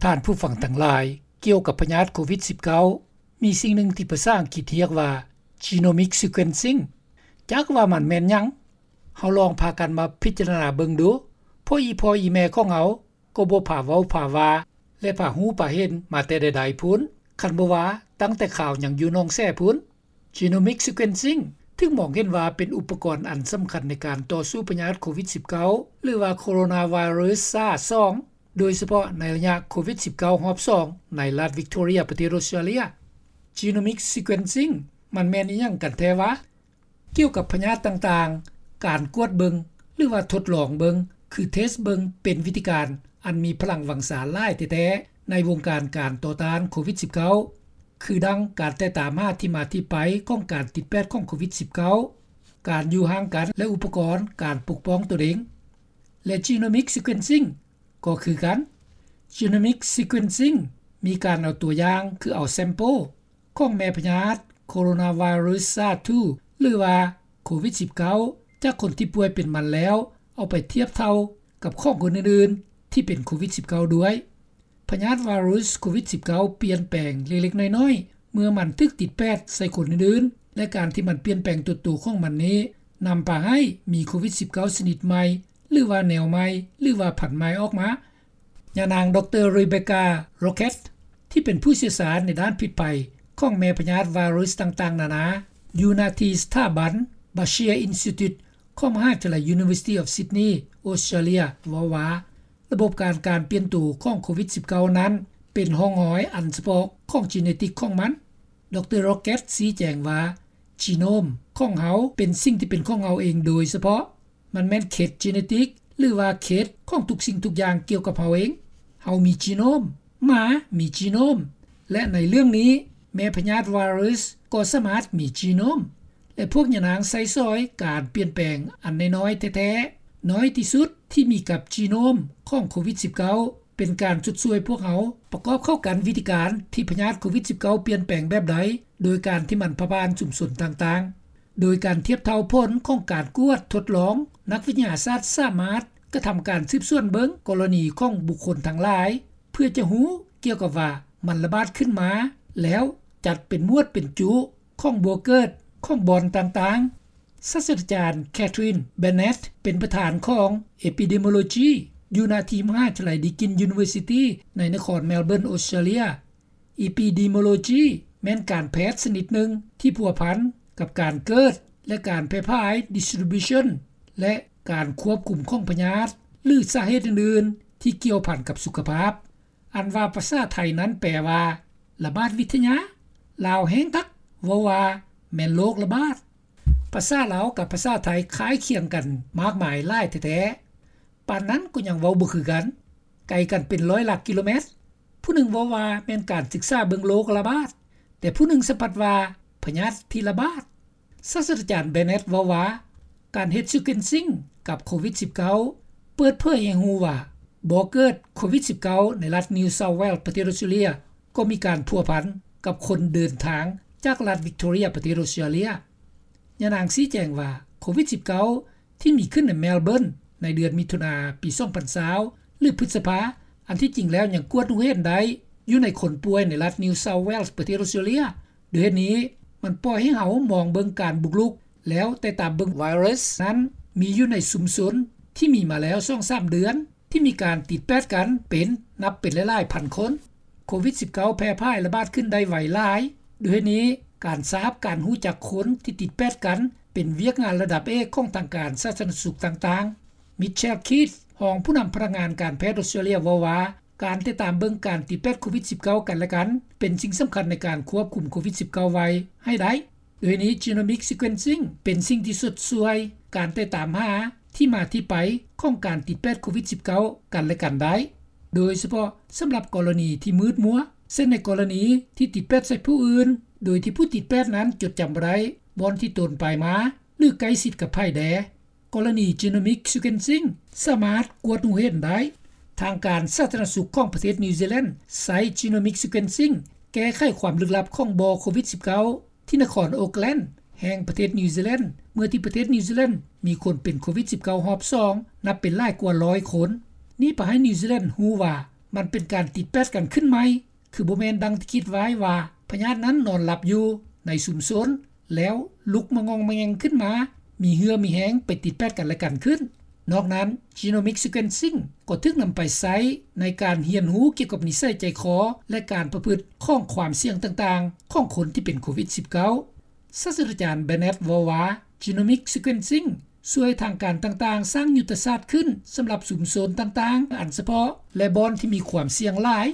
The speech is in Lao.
ທ່ານຜູ້ຟັງທັງຫຼາຍ, ກ່ຽວກັບພະຍາດໂຄວິດສິບເກົ້າ ມີສິ່ງໜຶ່ງທີ່ພາສາອັງກິດຮຽກວ່າ genomic sequencing. ຈັກວ່າມັນແມ່ນຫຍັງ? ເຮົາລອງພາກັນມາພິຈາລະນາເບິ່ງດູ, ເພາະອີ່ພໍ່ອີ່ແມ່ຂອງເຮົາກໍບໍ່ພາເວົ້າພາວ່າ ແລະ ພາຮູ້ພາເຫັນມາແຕ່ໃດໆພຸ້ນ, ຄັນບໍ່ວ່າຕັ້ງແຕ່ຄາວຍັງຢູ່ໜອງແສພຸ້ນ. Genomic sequencing ຖືກມອງເຫັນວ່າເປັນອຸປະກອນອັນສຳຄັນໃນການຕໍ່ສູ້ພະຍາດໂຄວິດສິບເກົ້າ ຫຼືວ່າ Coronavirus SARS ສອງ ໂດຍສະເພາະໃນໄລຍະໂຄວິດສິບເກົ້າຮອບສອງ ໃນລັດ Victoria ປະເທດ Australia. Genomic sequencing ມັນແມ່ນອີ່ຫຍັງກັນແທ້ວະ? ກ່ຽວກັບພະຍາດຕ່າງໆ, ການກວດເບິ່ງ ຫຼືວ່າທົດລອງເບິ່ງ ຄື test ເບິ່ງ ເປັນວິທີການອັນມີພະລັງວັງຊາຫຼາຍແທ້ໆ ໃນວົງການການຕໍ່ຕ້ານໂຄວິດສິບເກົ້າ ຄືດັ່ງການແຕ່ຕາມຫາທີ່ມາທີ່ໄປຂອງການຕິດແປດຂອງໂຄວິດສິບເກົ້າ, ການຢູ່ຫ່າງກັນ ແລະ ອຸປະກອນການປົກປ້ອງຕົນເອງ ແລະ genomic sequencing ກໍຄືກັນ. Genomic sequencing ມີການເອົາຕົວຢ່າງ ຄືເອົາ sample ຂອງແມ່ພະຍາດ Coronavirus SARS ສອງ ຫຼືວ່າໂຄວິດສິບເກົ້າ ຈາກຄົນທີ່ປ່ວຍເປັນມັນແລ້ວ ເອົາໄປທຽບເທົ່າກັບຂອງຄົນອື່ນໆທີ່ເປັນໂຄວິດສິບເກົ້າດ້ວຍ. ພະຍາດໄວຣັສໂຄວິດສິບເກົ້າ ປ່ຽນແປງເລັກໆນ້ອຍໆ ເມື່ອມັນຖືກຕິດແປດໃສ່ຄົນອື່ນໆ ແລະ ການທີ່ມັນປ່ຽນແປງຕົວໂຕຂອງມັນນີ້ ນຳພາໃຫ້ມີໂຄວິດສິບເກົ້າຊະນິດໃໝ່ ຫຼືວ່າແນວໃໝ່ ຫຼືວ່າພັນໃໝ່ອອກມາ. ຍານາງ ດຣ Rebecca Roquette ທີ່ເປັນຜູ້ຊ່ຽວຊານໃນດ້ານພິດໄພຂອງແມ່ພະຍາດໄວຣັສຕ່າງໆນານາ ຢູ່ນະທີ່ສະຖາບັນ Bashir Institute ຂອງມະຫາວິທະຍາໄລ University of Sydney Australia ເວົ້າວ່າ ລະບົບການ ການປ່ຽນໂຕຂອງໂຄວິດສິບເກົ້ານັ້ນ ເປັນຮ່ອງຮອຍອັນສະເພາະຂອງ genetic ຂອງມັນ. ດຣ Roquette ຊີ້ແຈງວ່າ genome ຂອງເຮົາເປັນສິ່ງທີ່ເປັນຂອງເຮົາເອງໂດຍສະເພາະ. ມັນແມ່ນເຂດ genetic ຫຼືວ່າເຂດຂອງທຸກສິ່ງທຸກຢ່າງກ່ຽວກັບເຮົາເອງ. ເຮົາມີ genome, ໝາມີ genome ແລະ ໃນເລື່ອງນີ້ ແມ່ພະຍາດໄວຣັສກໍສາມາດມີ genome ແລະ ພວກຍານາງໃຊ້ສອຍການປ່ຽນແປງອັນນ້ອຍໆແທ້ໆ ນ້ອຍທີ່ສຸດທີ່ມີກັບ genome ຂອງໂຄວິດສິບເກົ້າ ເປັນການຊົດຊ່ວຍພວກເຮົາປະກອບເຂົ້າກັນວິທີການທີ່ພະຍາດໂຄວິດສິບເກົ້າ ປ່ຽນແປງແບບໃດ ໂດຍການທີ່ມັນຜ່ານຊຸມຊົນຕ່າງໆ. ໂດຍການທຽບເທົ່າຜົນຂອງການກວດທົດລອງ, ນັກວິທະຍາສາດສາມາດກະທຳການສືບສວນເບິ່ງກໍລະນີຂອງບຸກຄົນທັງຫຼາຍ ເພື່ອຈະຮູ້ກ່ຽວກັບວ່າມັນລະບາດຂຶ້ນມາ ແລ້ວຈັດເປັນໝວດເປັນຈຸຂອງບໍ່ເກີດຂອງບ່ອນຕ່າງໆ. ສາດສະດາຈານ Catherine Bennett ເປັນປະທານຂອງ Epidemiology ຢູ່ນະທີ່ມະຫາວິທະຍາໄລ Deakin University ໃນນະຄອນ Melbourne Australia. Epidemiology ແມ່ນການແພດຊະນິດໜຶ່ງທີ່ພົວພັນກັບການເກີດ ແລະ ການແຜ່ຜາຍ distribution ແລະ ການຄວບຄຸມຂອງພະຍາດ ຫຼື ສາເຫດອື່ນໆທີ່ກ່ຽວພັນກັບສຸຂະພາບ. ອັນວ່າພາສາໄທນັ້ນແປວ່າ ລະບາດວິທະຍາ, ລາວແຮງຄັກເວົ້າວ່າແມ່ນໂລກລະບາດ. ພາສາລາວກັບພາສາໄທຄ້າຍຄຽງກັນມາກມາຍຫຼາຍແທ້ໆ. ປານນັ້ນກໍຍັງເວົ້າບໍ່ຄືກັນ, ໄກກັນເປັນຮ້ອຍຫຼັກກິໂລແມັດ. ຜູ້ໜຶ່ງເວົ້າວ່າແມ່ນການສຶກສາເບິ່ງໂລກລະບາດ, ແຕ່ຜູ້ໜຶ່ງສະພັດວ່າພະຍາດທີ່ລະບາດ. ສາດສະດາຈານ Bennett ເວົ້າວ່າ ການເຮັດ sequencing ກັບໂຄວິດສິບເກົ້າ ເປີດເຜີຍໃຫ້ຮູ້ວ່າບໍ່ເກີດໂຄວິດສິບເກົ້າ ໃນລັດ New South Wales ປະເທດອອສເຕຣເລັຍ ກໍມີການພົວພັນກັບຄົນເດີນທາງຈາກລັດ Victoria ປະເທດອອສເຕຣເລັຍ. ຍານາງຊີ້ແຈງວ່າ ໂຄວິດສິບເກົ້າ ທີ່ມີຂຶ້ນໃນ Melbourne ໃນເດືອນມິຖຸນາ ປີສອງພັນຊາວ ຫຼື ພຶດສະພາ ອັນທີ່ຈິງແລ້ວຍັງກວດຮູ້ເຫັນໄດ້ຢູ່ໃນຄົນປ່ວຍໃນລັດ New South Wales ປະເທດອອສເຕຣເລັຍ. ດ້ວຍເຫດນີ້ ມັນປ່ອຍໃຫ້ເຮົາມອງເບິ່ງການບຸກລຸກ ແລ້ວແຕ່ຕາມເບິ່ງໄວຣັສນັ້ນມີຢູ່ໃນຊຸມຊົນທີ່ມີມາແລ້ວສອງສາມເດືອນ ທີ່ມີການຕິດແປດກັນເປັນນັບເປັນຫຼາຍໆພັນຄົນ. ໂຄວິດສິບເກົ້າ ແຜ່ຜາຍລະບາດຂຶ້ນໄດ້ໄວຫຼາຍ. ດ້ວຍເຫດນີ້ ການຊາບການຮູ້ຈັກຄົນທີ່ຕິດແປດກັນ ເປັນວຽກງານລະດັບເອກຂອງທາງການສາທາລະນະສຸກຕ່າງໆ. Michelle Keith ຮອງຜູ້ນຳພະນັກງານການແພດອອສເຕຣເລັຍ ເວົ້າວ່າ ການຕິດຕາມເບິ່ງການຕິດແປດໂຄວິດສິບເກົ້າກັນແລະກັນ ເປັນສິ່ງສຳຄັນໃນການຄວບຄຸມໂຄວິດສິບເກົ້າໄວ້ໃຫ້ໄດ້. ໂດຍນີ້ genomic sequencing ເປັນສິ່ງທີ່ຊົດຊ່ວຍການຕິດຕາມຫາທີ່ມາທີ່ໄປຂອງການຕິດແປດໂຄວິດສິບເກົ້າກັນແລະກັນໄດ້, ໂດຍສະເພາະສຳລັບກໍລະນີທີ່ມືດມົວ, ເຊັ່ນໃນກໍລະນີທີ່ຕິດແປດໃສ່ຜູ້ອື່ນ ໂດຍທີ່ຜູ້ຕິດແປດນັ້ນຈົດຈຳບໍ່ໄດ້ບ່ອນທີ່ຕົນໄປມາ ຫຼື ໃກ້ຊິດກັບໃຜແດ່. ກໍລະນີ genomic sequencing ສາມາດກວດຮູ້ເຫັນໄດ້. ທາງການສາທາລະນະສຸກຂອງປະເທດນິວຊີແລນ ໃຊ້ genomic sequencing ແກ້ໄຂຄວາມລຶກລັບຂອງບໍ່ໂຄວິດສິບເກົ້າ ທີ່ນະຄອນໂອກແລນ ແຫ່ງປະເທດນິວຊີແລນ ເມື່ອທີ່ປະເທດນິວຊີແລນມີຄົນເປັນໂຄວິດສິບເກົ້າຮອບສອງ ນັບເປັນຫຼາຍກວ່າຮ້ອຍຄົນ. ນີ້ພາໃຫ້ນິວຊີແລນຮູ້ວ່າ ມັນເປັນການຕິດແປດກັນຂຶ້ນໃໝ່ ຄືບໍ່ແມ່ນດັ່ງທີ່ຄິດໄວ້ວ່າ ພະຍາດນັ້ນນອນຫຼັບຢູ່ໃນຊຸມຊົນ ແລ້ວລຸກມາງອງມາແງງຂຶ້ນມາ ມີເຫື່ອມີແຮງໄປຕິດແປດກັນແລະກັນຂຶ້ນ. ນອກນັ້ນ Genomic Sequencing ກໍຖືກນຳໄປໃຊ້ໃນການຮຽນຮູ້ກ່ຽວກັບນິໄສໃຈຄໍ ແລະ ການປະພຶດຂອງຄວາມສ່ຽງຕ່າງໆ ຂອງຄົນທີ່ເປັນໂຄວິດ-19. ສາດສະດາຈານ Bennett ເວົ້າວ່າ Genomic Sequencing ຊ່ວຍທາງການຕ່າງໆສ້າງຍຸດທະສາດຂຶ້ນສຳລັບຊຸມຊົນຕ່າງໆອັນສະເພາະ ແລະ ບ່ອນທີ່ມີຄວາມສ່ຽງຫຼາຍ